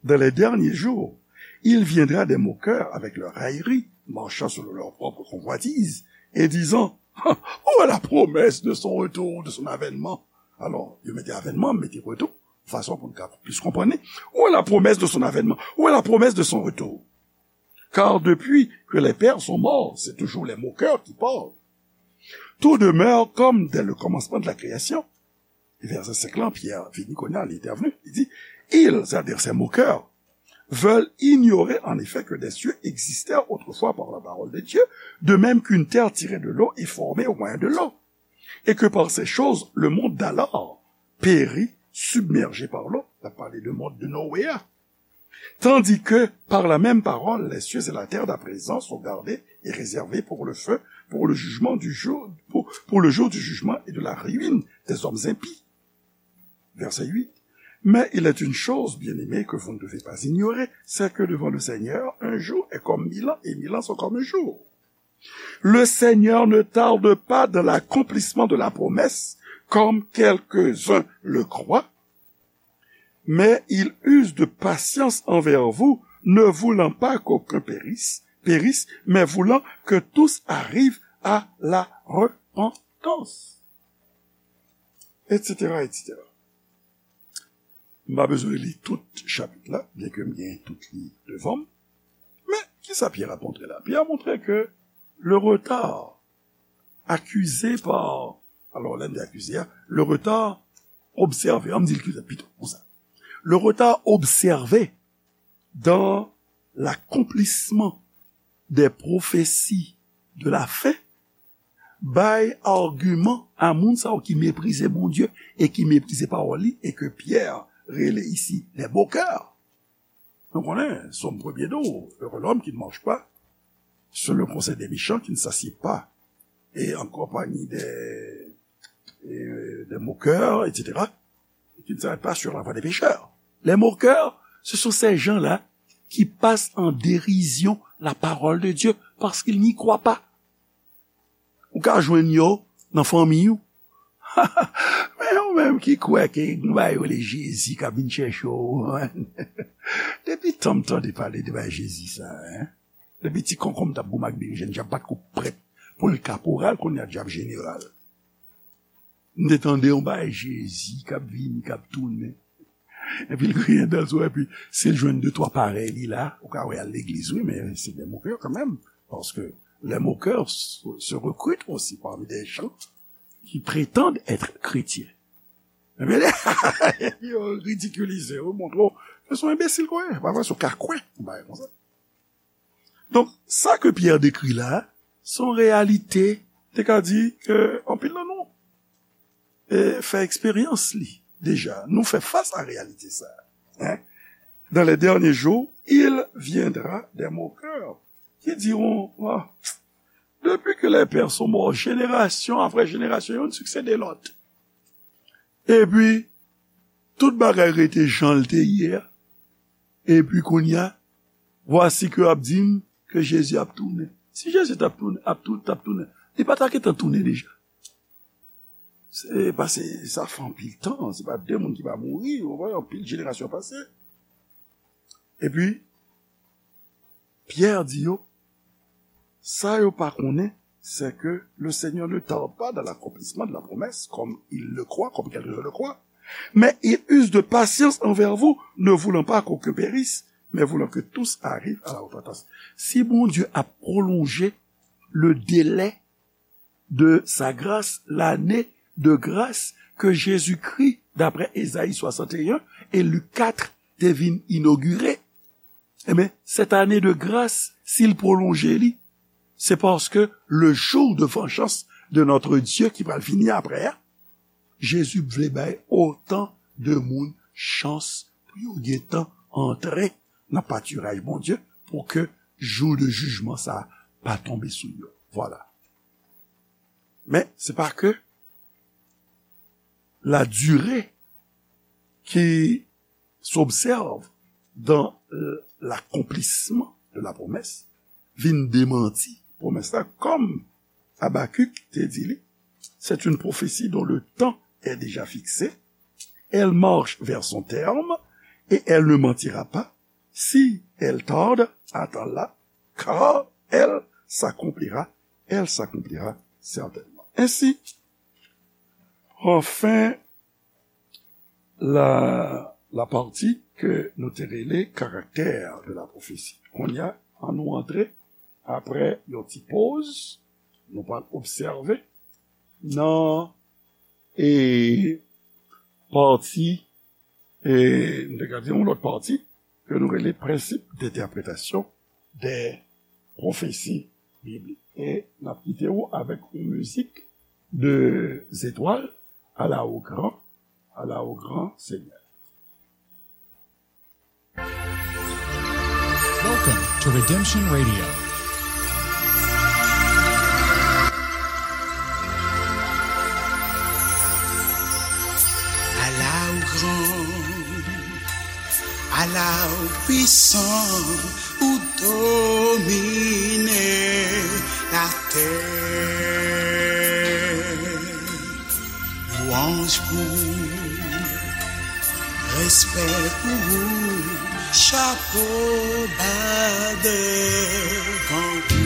dans les derniers jours, il viendra des moqueurs avec leurs railleries, marchant selon leur propre convoitise, et disant, où est la promesse de son retour, de son avènement? Alò, yo mete avènman, mete retou, fason pou n ka plis konprann li. Où est la promesse de son avènement? Où est la promesse de son retour? Car depuis que les pères sont morts, c'est toujours les moqueurs qui parlent. Tout demeure comme dès le commencement de la création. E vèsè senk lan, Pyè vini kounye a, li entèvni, li di, ils, c'est-à-dire ces moqueurs, veulent ignorer en effet que des cieux existèrent autrefois par la parole de Dieu, de même qu'une terre tirée de l'eau est formée au moyen de l'eau. Et que par ces choses, le monde d'alors périt submergé par l'eau. L ap pale de mond de Noé a. Tandis que, par la même parole, les cieux et la terre d'à présent sont gardés et réservés pour le feu, pour le jugement du jour, pour, pour le jour du jugement et de la ruine des hommes impies. Verset huit. Mais il est une chose, bien-aimés, que vous ne devez pas ignorer, c'est que devant le Seigneur, un jour est comme mille ans, et mille ans sont comme un jour. Le Seigneur ne tarde pas dans l'accomplissement de la promesse, comme quelques-uns le croient, mais il use de patience envers vous, ne voulant pas qu'aucun périsse, périsse, mais voulant que tous arrivent à la repentance. Et cetera, et cetera. M pa bezwen li tout chapit la, byenke m gen tout li devan m. Men, kisa Pyè ap montre la? Pyè ap montre ke le retard accusé par, alò, lè n di akize a, le retard observé, an m di l pito konsa. Le retard observé dans l'accomplissement des prophéties de la fin bay agiman a moun sa yo ki meprize Bondye e ki meprize pawòl li, e ke Pyè rele isi les moqueurs. Nou konnen, Sòm premye di w, heureux l'homme qui ne marche pas selon le conseil des méchants, qui ne s'assied pas et en compagnie des, et des moqueurs, et cetera, et qui ne s'arrête pas sur la voie des pécheurs. Les moqueurs, ce sont ces gens-là qui passent en dérision la parole de Dieu parce qu'ils n'y croient pas. Ou ka jwenn yo nan fanmi ou. Men yo menm ki kwè ke gen yon bagay yo rele Jezi k ap vin chèche w. Depi tan m tande pale de bagay Jezi sa, en. Depi ti konkonm t ap goumen ak berejèn, dyab pa t ko prèt pou l kaporal, kounye a dyab jeneral. M te tande yon bagay Jezi k ap vini, k ap tounen. Epi l griyen dan l sou, epi si l jwenn de twa parèy li la, ou ka wè al legliz, wi, men se des moqueurs quand même, parce que les moqueurs se, se recrutent aussi parmi des gens qui prétendent être chrétiens. Epi, epi yo ridikilize w, montre w ke se yon enbesil ke w ye, pa vre, se yon kakwen, yon bagay konsa. Donk, sa ke Pyè dekri la, se yon reyalite, te ka di ke anpil nan nou e, fè eksperyans li deja. Nou fè fas a reyalite sa. Hein? Dans les derniers jours, il viendra des moqueurs qui diront, ah, depuis que les pères sont morts, génération après génération, youn siksede lòt. Epi, tout bagay rete jan l te ye a. Epi kounye a, vwasi ke ap di m ke Jezi ap tounen. Si Jezi t ap tounen, ap tou-, t ap tounen, li pa ta gentan tounen deja. Se pase, sa fè anpil tan, se pa de moun ki pa mouri, ou wè, anpil jenerasyon pase. Epi, Pyè di yo, sa yo pa konnen, c'est que le Seigneur ne tarde pas dans l'accomplissement de la promesse, comme il le croit, comme quelques-uns le croient, mais il use de patience envers vous, ne voulant pas qu'aucun périsse, mais voulant que tous arrivent à la repentance. Si Bondye ap pwolonje le délai de sa grâce, l'année de grâce que Jésus-Christ, d'après Ésaïe soixante et un et Luc quatre, te vin inogire, eh bien, cette année de grâce, si l pwolonje li, c'est parce que le jour de vengeance de notre Dieu ki pral vini apre a, Jezi vle bay otan de moun chans pou yo gentan antre nan patiraj Bondye, pou ke jou de jijman sa a pa tonbe sou yo. Vwala. Men, se pa ke la durée qui s'observe dans, euh, l'accomplissement de la promesse vin demanti pwomès la, kòm Habakuk te di li, c'est une prophétie dont le temps est déjà fixé. Elle marche vers son terme et elle ne mentira pas. Si elle tarde, attends-la, car elle s'accomplira, elle s'accomplira certainement. Ainsi, enfin, la, la partie ke nou te rele caractère de la prophétie. Kounye a, ann nou antre, apre yon ti poz, nou pral obsève nan, e, pati, e, nou te ka di yon lòt pati, ke nou rele prensip de entèpretasyon de pwofesi biblik. E n ap kite w avèk yon mizik Deux étoiles, à la au grand, à la au grand Seigneur. Welcome to Redemption Radio. Ala ou gran, ala ou pwisan, ou domine latè. Lwanj pou ou, respè pou ou, chapo ba devan ou.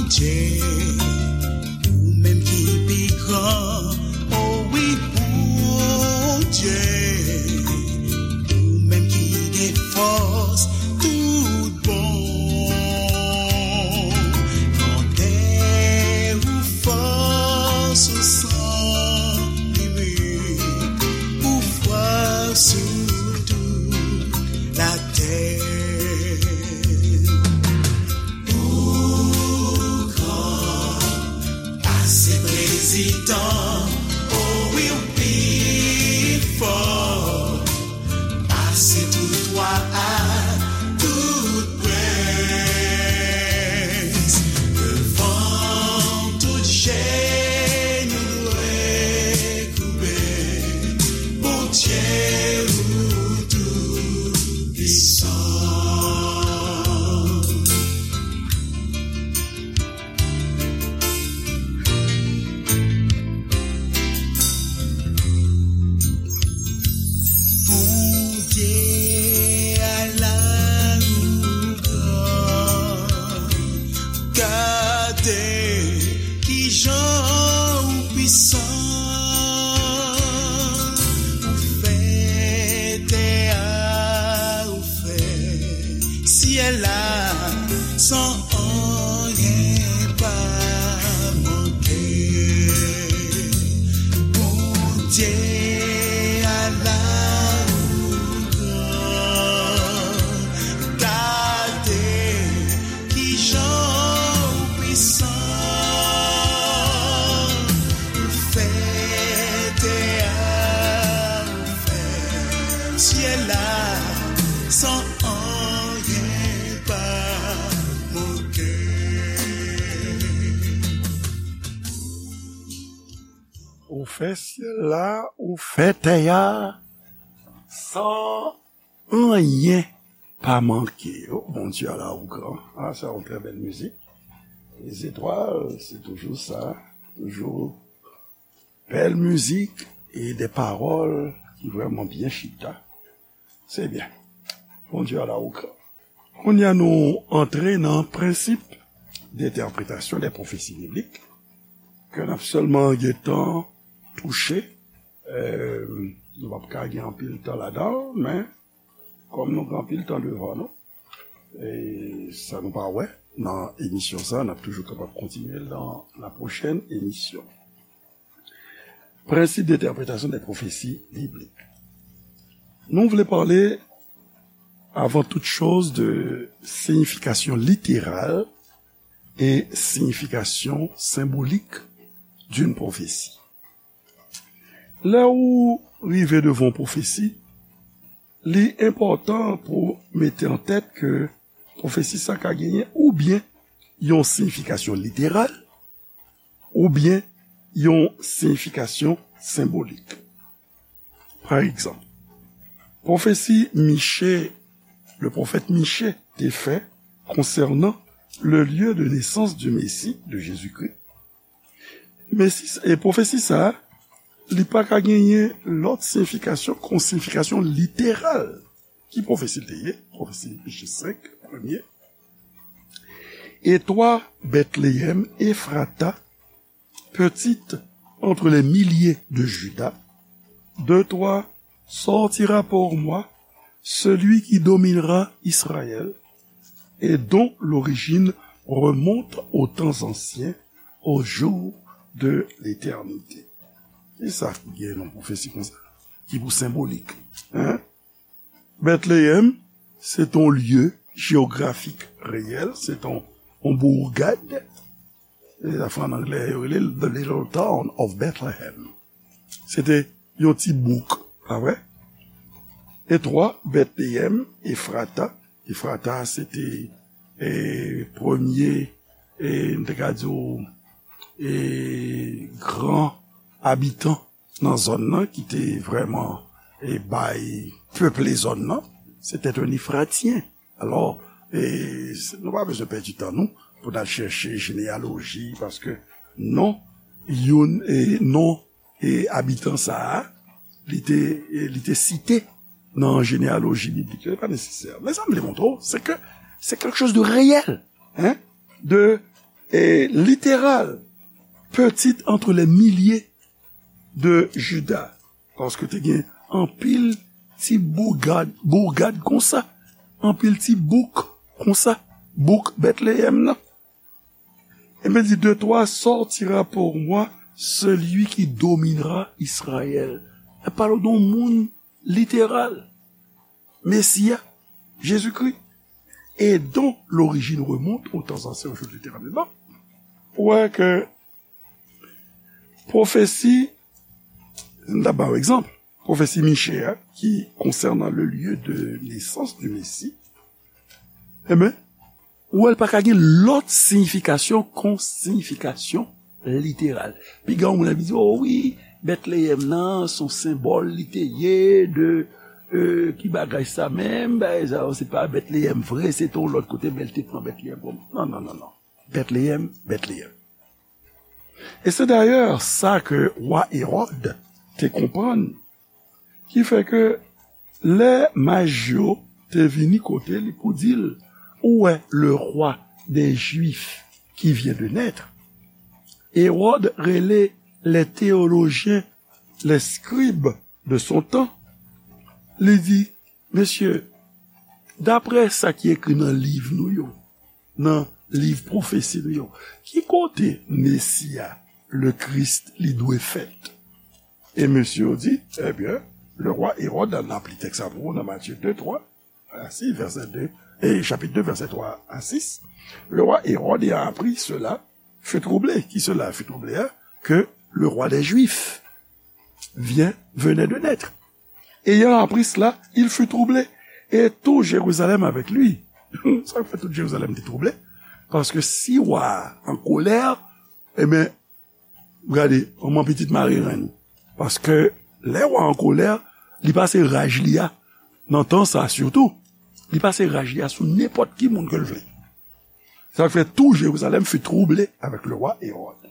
Bondye, ou menm ki pi gran, o wi, Bondye, ou menm ki gen fòs tout bon. Grandè ou, fòs ou san limit, ou fwa sou tout latè. Ou gran pase prezidan, o wi, ou pi fò pase tout wa ak tout prens. Devan w tout jenou dwe koube, Bondye ou tou pwisan. Bondye, ala ou gran, gade kijan ou pwisan, ou fè tè a, ou fè syèl la, san anyen pa manke. Bondye, ala ou gran, gade kijan ou pwisan, ou fè tè a, ou fè syèl la, san anyen pa manke. Ou fè syèl la, ou fè tè a, san anyen pa manke. Oh, Bondye, ala ou gran. Ah, c'est une très belle musique. Les étoiles, c'est toujours ça. Toujours bèl mizik e de pawòl ki vrèman byen chita. Se byen. Bondye, ala ou gran. Kounye a nou antre nan prensip d'entèpretasyon de pwofesi biblik ke n ap sèlman gentan touche. Eh, nou p ap ka gen anpil tan ladan l, men kòm nou gen anpil tan devan nou, e sa nou pa wè nan emisyon sa, n ap toujou kapab kontinye l nan la pwochèn emisyon. Prensip d'entèpretasyon de pwofesi biblik. Nou vle pale, avan tout choz, de siyifikasyon literal e siyifikasyon senbolik d'une prophétie. Lè ou rive devan yon pwofesi, li enpòtan pou mete an tèt ke pwofesi sa ka genyen oubyen yon siyifikasyon literal, oubyen yon siyifikasyon senbolik. Pa egzanp, pwofesi Miche, le pwofèt Miche te fè konsènan le lieu de naissance du Messie, de Jésus-Christ, Mesi, e pwofesi sa a, li pa ka genyen lòt siyifikasyon ke yon siyifikasyon literal. Ki pwofesi l te ye? Pwofesi Miche senk, premye. Et toi, Bethléem Ephrata, petite entre les milliers de Juda, de toi sortira pour moi celui qui dominera Israël et dont l'origine remonte aux temps anciens, aux jours de l'éternité. Kisa ki gen nan pwofesi konsa? Ki pou senbolik. Hein? Bètleyèm, se t on lye jewografik reyèl, se t on, on bourgade. E sa fè an anglè, yo rele The Little Town of Bethlehem. Se te yon ti bouk, pa vre? E twa, Bètleyèm, Efrata. Efrata, se te, e, premye, e, m te ka di w, e, gran abitan nan zòn nan ki te vrèman, e, bay peple zòn nan, se te yon Efratyen. Alò, e, se, nou pa bezwen pèdi tan nou pou n al chèche jeneyaloji, paske non, youn, e, non, e, abitan sa a, li te, e, li te site nan jeneyaloji biblik. Se pa nesesè. Men sa m vle montre w, se ke se quelque chose de réel, hein, de, e, literal, petit entre les milliers de Juda. Paske te gen anpil ti bougad, bougad konsa, anpil ti bouk konsa, bouk Bètleyèm nan. Ebyen, di, de toi sortira pour moi celui qui dominera Israël. L ap pale de yon moun literal, Mesi a, Jezikri, et dont l'origine remonte aux temps anciens, aux jours de l'éternel. Bon, ou wè ke pwofesi, m ta ba w egzanp, pwofesi Miche a, ki konsènan le lieu de naissance du Messie, enben, ou wè l pa ka gen lòt siyifikasyon kon siyifikasyon literal. Piga yon moun ap di, o wi, Bètleyèm nan, se yon senbòl li te ye de, e, ki bagay sa menm, bagay sa yo, se pa Bètleyèm vre, se te yon lòt kote, men l te pran Bètleyèm kòm. Non, non, non, non. Bètleyèm, Bètleyèm. E se dayè sa ke wa Ewòd te konprann, ki fè ke lè maj yo te vini kote li pou di l, ou wè, le roi des Juifs qui vient de naître, Ewòd rele les théologiens, les scribes de son temps, li di, mesye, daprè sa ki ekri nan liv nou yo, nan liv pwofesi nou yo, ki kote Mesi a, le Christ, li dwe fèt? E mesye yo di, ebyen, le roi Hérode, n ap li tèks sa pou ou nan Matye de, twa a sis, vèsè de, e chapit de, vèsè twa a sis, le roi Hérode ayant appris cela fut troublé. Qui cela fut troublé, hein? Que le roi des Juifs vient, venait de naître. Ayant appris cela, il fut troublé. Et tout Jérusalem avec lui. Sa k fè tout Jerizalèm te twouble? Paske si wa a an kolè, ebyen, gade, manman pitit mare renn. Paske lè wa an kolè, li pase raj li a, nan tan sa sitou, li pase raj li a sou nenpòt ki moun ke l vle. Sa k fè tout Jérusalem fut troublé avec le roi Hérode.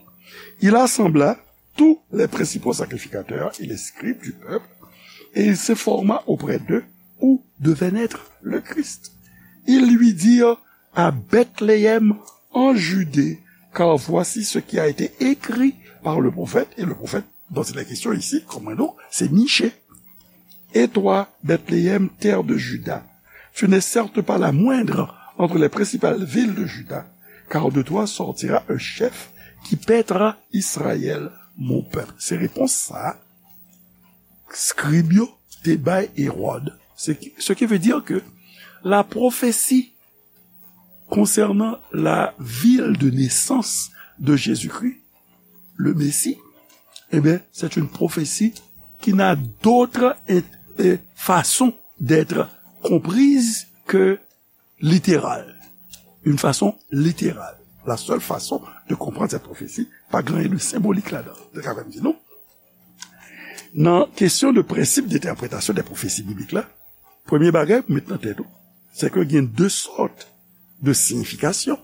Il assembla tous les principaux sacrificateurs et les scribes du peuple, et il s'informa auprès d'eux où devait naître le Christ. Ils lui dirent, à Bethléem en Judée, car voici ce qui a été écrit par le prophète, et le prophète dont il est question ici, konprann nou, se Miche. Et toi, Bethléem, terre de Juda, tu n'es certes pas la moindre entre les principales villes de Juda, car de toi sortira un chef qui paîtra Israël, mon peuple. Se repons sa a, skrib yo te bay Ewòd. Se ki, ce qui veut dire que la prophétie concernant la ville de naissance de Jésus-Christ, le Messie, eh bien, c'est une prophétie qui n'a d'autre in-, euh, façon d'être comprise que littérale. Une façon littérale. La seule façon de comprendre cette prophétie, pa gen anyen de senbolik ladan. Sa ka fè m di nou, nan kesyon de prensip de entèpretasyon de pwofesi biblik la, premye bagay pou met nan tèt ou, se ke gen de sòt de siyifikasyon.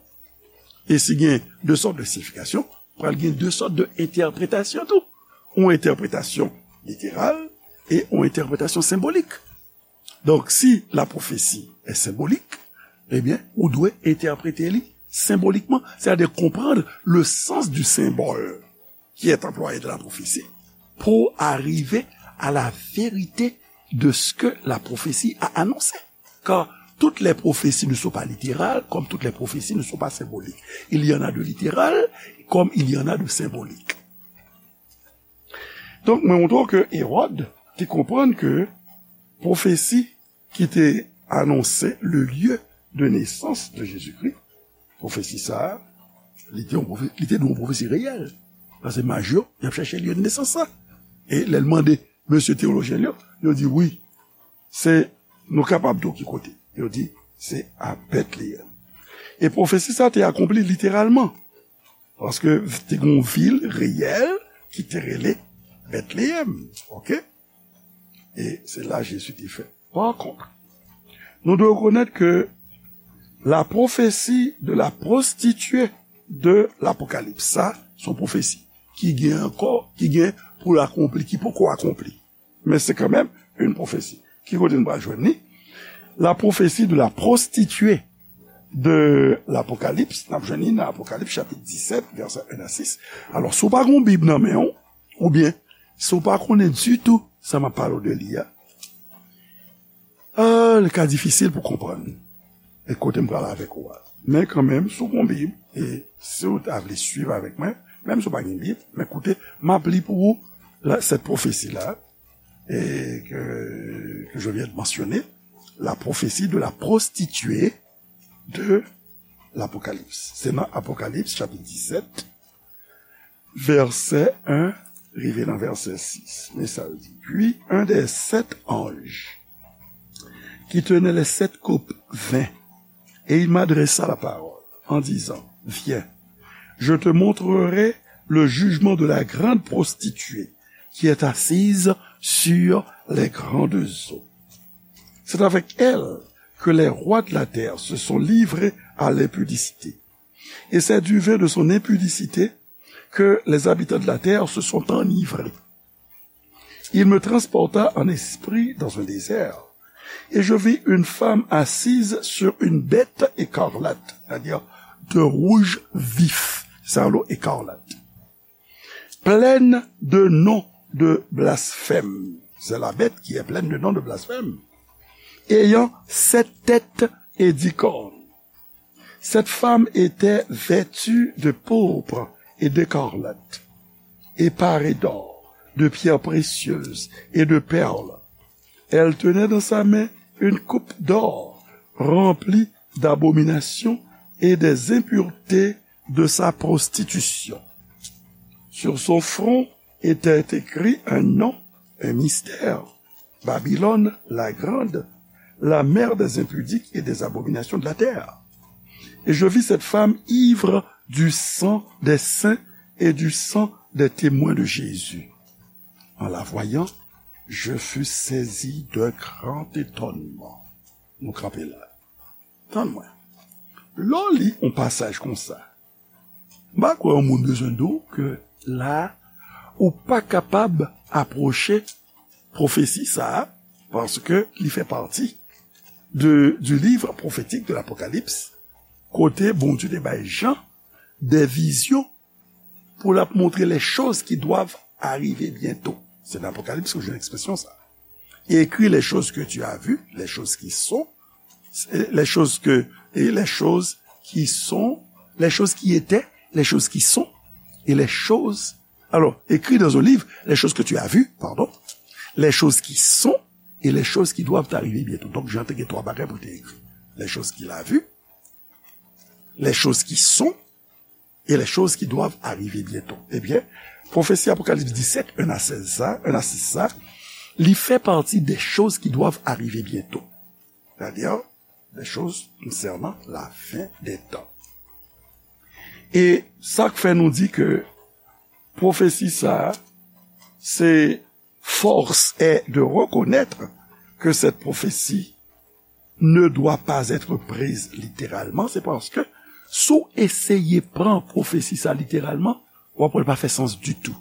E si gen de sòt de siyifikasyon, pral gen de sòt de entèpretasyon tou. Yon entèpretasyon literal e yon entèpretasyon senbolik. Donk, si la prophétie est symbolique, ebyen, ou dwe entèprete li senbolikman, c'est-à-dire comprendre le sens du symbole qui est employé dans la prophétie pour arriver à la vérité de ce que la prophétie a annoncé. Car toutes les prophéties ne sont pas littérales, comme toutes les prophéties ne sont pas symboliques. Il y en a de littéral, comme il y en a de symbolique. Donk, mwen montre w ke Ewòd te konprann ke pwofesi ki te anonse le lieu de naissance de Jésus-Christ, pwofesi sa a, li te yon pwofe-, li te dwe yon pwofesi reyèl. Paske maj yo, y ap chèche lye de nesans la. E lè l mande mesye teyolojyen yo, yo di wi, se, nou kapab di w ki kote. Yo di, se a Betleyèm. E pwofesi sa te akonpli literalman. Paske te gen yon vil reyèl ki te rele Betleyèm. Oke? E se la Jezi te fèt. Pa kont, nou dwe rekonèt ke la pwofesi de la pwostitye de Lapokalips, sa, se yon pwofesi ki gen ankò, ki gen pou l akonpli, ki poko akonpli. Men se kanmenm yon pwofesi. Ki kote n pral jwenn li? La pwofesi de la pwostitye de Lapokalips, n ap jwenn li nan Apokalips chapit disèt, vèsè en a sis. Alò, si w pa gen yon Bib nan men w, oubyen si w pa konnen ditou sa m ap pale w de li a, ah, li ka difisil pou konprann e kote m pral avèk ou a. Men kanmenm, si w gen yon Bib, e si w ta vle swiv avèk mwen, menm si w pa gen Bib, men koute, m ap li pou ou la, cette prophétie-là, et que, que je viens de mentionner, la prophétie de la prostituée de l'Apocalypse. Se nan Apokalips, chapit disèt, vèsè en, rive nan vèsè sis. Men sa l di. Puis un des sept anges qui tenait les sept coupes vint, et il m'adressa la parole, en disant, viens, je te montrerai le jugement de la grande prostituée qui est assise sur les grandes eaux. C'est avec elle que les rois de la terre se sont livrés à l'impudicité. Et c'est du vin de son impudicité que les habitants de la terre se sont enivrés. Il me transporta en esprit dans un désert, et je vis une femme assise sur une bête écarlate, c'est-à-dire de rouge vif, c'est un lot écarlate, pleine de noms de blasphème. C'est la bête qui est pleine de noms de blasphème, ayant sept têtes et dix cornes. Cette femme était vêtue de pourpre et d'écarlate, et parée d'or, de pierres précieuses et de perles. Elle tenait dans sa main une coupe d'or remplie d'abominations et des impuretés de sa prostitution. Sur son front était écrit un nom, un mystère, Babylone la grande, la mère des impudiques et des abominations de la terre. Et je vis cette femme ivre du sang des saints et du sang des témoins de Jésus. En la voyant, je fus saisi d'un grand étonnement. Nou kanpe la. Tann mwen. Lè w li yon pasaj konsa, m pa kwè yon moun bezwen di w ke la, ou pa kapab apwoche pwofesi sa a, paske li fè pati de, du livre prophétique de l'Apocalypse, kote Bondye te bay Jan de vizyon pou l ap montre les choses qui doivent arriver bientôt. Se nan Apokalips ke w jwenn ekspresyon sa. Et écris les choses que tu as vues, les choses qui sont, les choses que, et les choses qui sont, les choses qui étaient, les choses qui sont, et les choses, alors, écris dans un livre les choses que tu as vues, pardon, les choses qui sont, et les choses qui doivent arriver bientôt. Donk, Jan te gen twa bagay pou te ekri. Les choses qu'il a vues, les choses qui sont, et les choses qui doivent arriver bientôt. Ebyen, pwofesi Apokalips disèt, en a sèz sa, en a sis sa, li fè pati des choses qui doivent arriver bientôt. C'est-à-dire, des choses concernant la fin des temps. E sa k fè nou di ke pwofesi sa a, se force est de reconnaître que cette prophétie ne doit pas être prise littéralement, se paske si w eseye pran pwofesi sa literalman, w ap wè l pa fè sans ditou.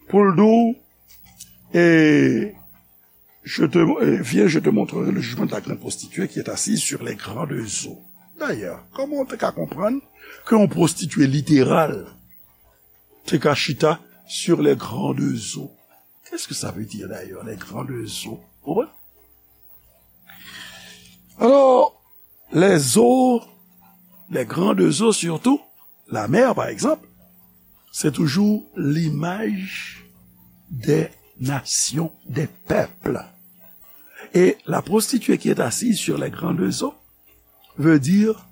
Pou l di w, e, je te, e, viens, je te montrerai le jugement de la grande prostituée qui est assise sur les grandes eaux. D'ailleurs, kòman w te ka konprann ke yon pwostitye literal te ka chita sur les grandes eaux? Qu'est-ce que ça veut dire d'ailleurs, les grandes eaux? Ou konprann? Alors, les eaux, les grandes eaux surtout, la mer par exemple, c'est toujours l'image des nations, des peuples. Et la prostituée qui est assise sur les grandes eaux veut dire